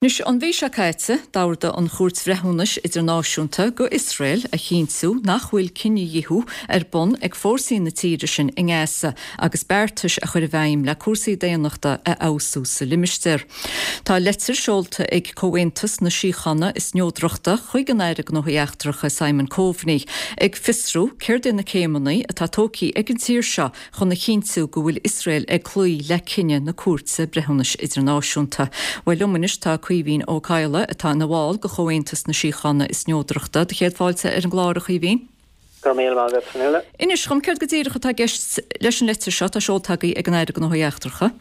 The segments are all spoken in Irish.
Anois, an mhí seo caite, d'ordaigh an Chúirt Bhreithiúnais Idirnáisiúnta go Iosrael a chinntiú nach bhfuil cinedhíothú ar bun ag fórsaí na tíre sin i nGaza agus beartais a chur i bhfeidhm le cúrsaí daonnachta a fheabhsú sa limistéar. Tá leitir seolta ag Comhaontas na Síochána is Neodrachta chuig an Aire Gnóthaí Eachtracha Simon Coveney ag fiosrú céard é na céimeanna atá tógtha ag an tír seo chun a chinntiú go bhfuil Iosrael ag cloí le cinneadh na Cúirte Breithiúnais Idirnáisiúnta. Bhuel, liom anois tá Caoimhín Ó Cadhla, atá ina bhall de Chomhaontas na Síochána is Neodrachta. Do chéad fáilte ar an gclár, a Chaoimhín. Go raibh míle maith agat, Fionnuala. Inis dhom, céard go díreach atá i gceist leis an leitir seo atá seolta agaibh ag an Aire Gnóthaí Eachtracha?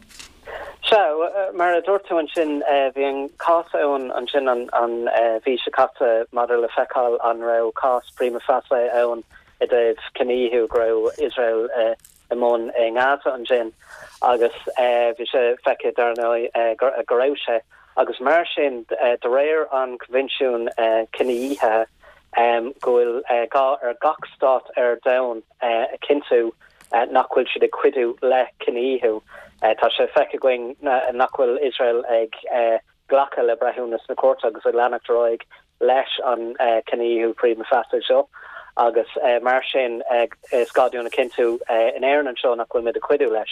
Sea, mar a dúirt tú ansin, bhí an cás ann ansin an mhí seo caite maidir le feiceáil an raibh cás prima facie ann i dtaobh cinedhíothú go raibh Iosrael i mbun i nGaza ansin agus bhí sé feicthe dar ndóigh go raibh sé agus mar sin de réir an Coinbhinsiúin Cinedhíothaithe go bhfuil gá ar gach stát ar domhan a chinntiú nach bhfuil siad ag cuidiú le cinedhíothú. Tá sé feicthe againn nach bhfuil Iosrael ag glacadh le breithiúnas na cúirte agus ag leanacht ar aghaidh leis an cinedhíothú prima facie seo agus mar sin is gá dúinn a chinntiú in Éirinn anseo nach bhfuil muid ag cuidiú leis.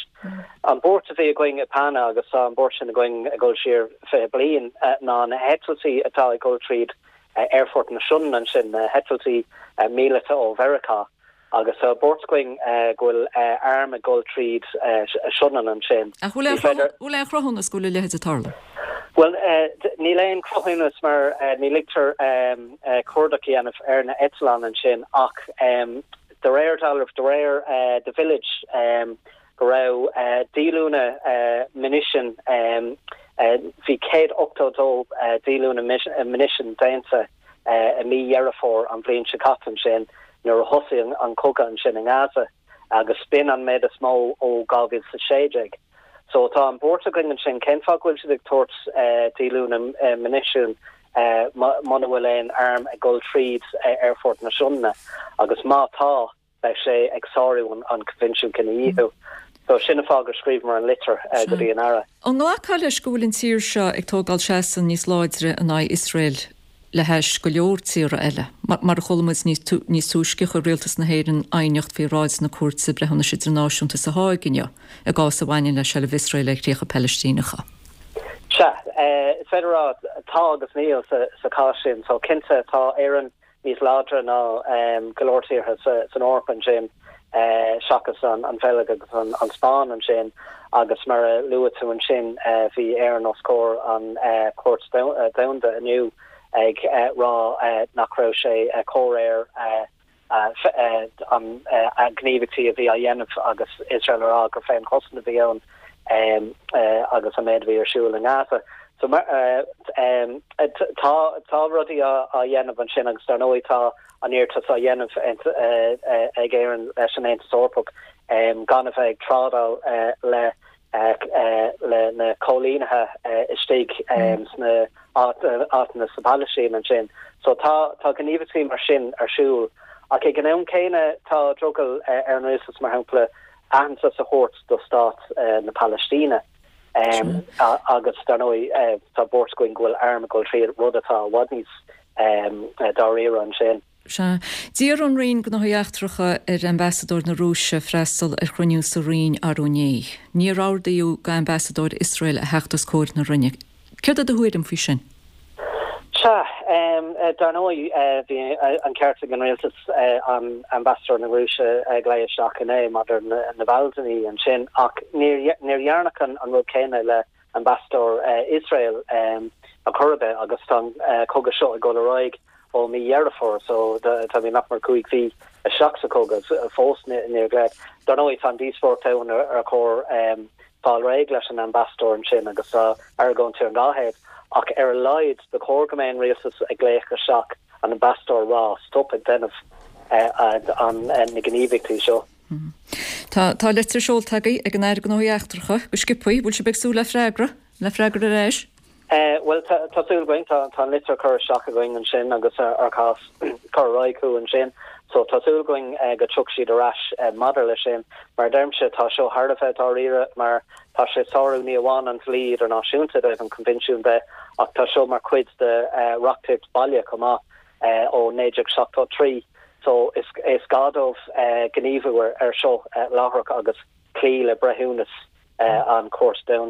An buairt a bhí againn i PANA agus tá an buairt sin againn ag dul siar 20 bliain ná na heitiltí atá ag dul tríd Aerfort na Sionainne ansin, na heitiltí míleata ó Mheiriceá. Agus tá buairt againn go bhfuil airm ag dul tríd Sionainn ansin. Ach bhfuil aon chruthúnas go bhfuil a leithéid ag tarlú? Bhuel, níl aon chruthúnas mar ní ligtear cuardach a dhéanamh ar na eitleáin ansin ach de réir dealraimh, de réir The Village, go raibh díolúine munition, bhí 182 díolúine munition déanta i mí Dheireadh Fómhair an bhliain seo caite ansin nuair a thosaigh an cogadh ansin i nGaza agus b'in an méid is mó ó 2016. So tá an buairt againn ansin, cén fáth go bhfuil siad ag tabhairt díolúine munition muna bhfuil aon arm ag dul tríd Aerfort na Sionainne agus má tá, beidh sé ag sárú an Coinbhinsiún Cinedhíothú. So sin an fáth gur scríobhamar an litir go dtí an Aire. An nglacfá leis go bhfuil an tír seo ag tógáil seasamh níos láidre in aghaidh Iosrael le hais go leor tíortha eile? Mar a chuala muid níos túisce, chuir Rialtas na hÉireann aighneacht faoi bhráid na Cúirte Breithiúnais Idirnáisiúnta sa Háig inniu i gcás a bhaineann le seilbh Iosrael ar chríocha Palaistíneacha. Sea, is féidir a rá tá agus níl sa chás sin. So cinnte tá Éirinn níos láidre ná go leor tíortha san Eoraip ansin, seachas an Bheilg agus an Spáinn ansin, agus mar a luaigh tú ansin, bhí Éirinn os comhair an Chúirt Domhanda inniu ag rá nach raibh sé comhréir an gníomhaíochtaí a bhí á dhéanamh agus Iosrael a rá gur féinchosaint a bhí ann agus an méid a bhí ar siúl i nGaza. So tá tá rudaí á dhéanamh ansin agus dar ndóigh tá an iarratas á dhéanamh ag Éirinn leis an Aontas Eorpach gan a bheith ag trádáil le le na coilínithe istigh sna áiteanna sa Phalaistín ansin. So tá tá gníomhaíochtaí mar sin ar siúl ach ag an am céanna tá drogall ar an rialtas mar shampla aitheantas a thabhairt do stát na Palaistíne. Agus dar ndóigh tá buairt againn go bhfuil arm ag dul tríd, rud atá i bhfad níos dáiríre ansin. Sea. D'iarr an Roinn Gnóthaí Eachtracha ar Ambasadóir na Rúise freastal ar chruinniú sa Roinn arú inné. Níor ordaíodh d'Ambasadóir Iosrael a theacht os comhair na Roinne. Céard é do thuairim faoi sin? Sea, dar ndóigh, bhí an ceart ag an rialtas an Ambasadóir na Rúise a ghlaoch isteach inné maidir le Navalny ansin, ach níor dhearnadh an rud céanna le Ambasadóir Iosrael ar chor ar bith agus tá an cogadh seo ag dul ar aghaidh ó mí Dheireadh Fómhair, so táimid nach mór 5 mhí isteach sa chogadh fós níor glaodh. Dar ndóigh, tá an díospóireacht ann ar chóir fáil réidh leis an ambasadóir ansin agus tá argóintí ar an dá thaobh ach ar a laghad ba chóir go mbeadh an rialtas ag glaoch isteach an ambasadóir a rá stop ag déanamh na gníomhaíochtaí seo. Tá tá litir seolta agaibh ag an Aire Gnóthaí Eachtracha go sciobthaí. Bhfuil sibh ag súil le freagra? Le freagra ar ais? Bhuel, tá súil againn. Tá an litir curtha isteach againn ansin agus ár cás curtha ar aghaidh chucu ansin. So tá súil againn go dtiocfaidh siad ar ais maidir leis sin. Mar a deirimse, tá seo thar a bheith dáiríre mar tá sé ag sárú ní amháin an dlí idirnáisiúnta i dtaobh an Coinbhinsiúin de ach tá seo mar chuid de reachtaíocht baile chomh maith ó 1973. So is gá dóibh gníomhú ar seo láithreach agus cloí le breithiúnas an Chúirt Domhanda.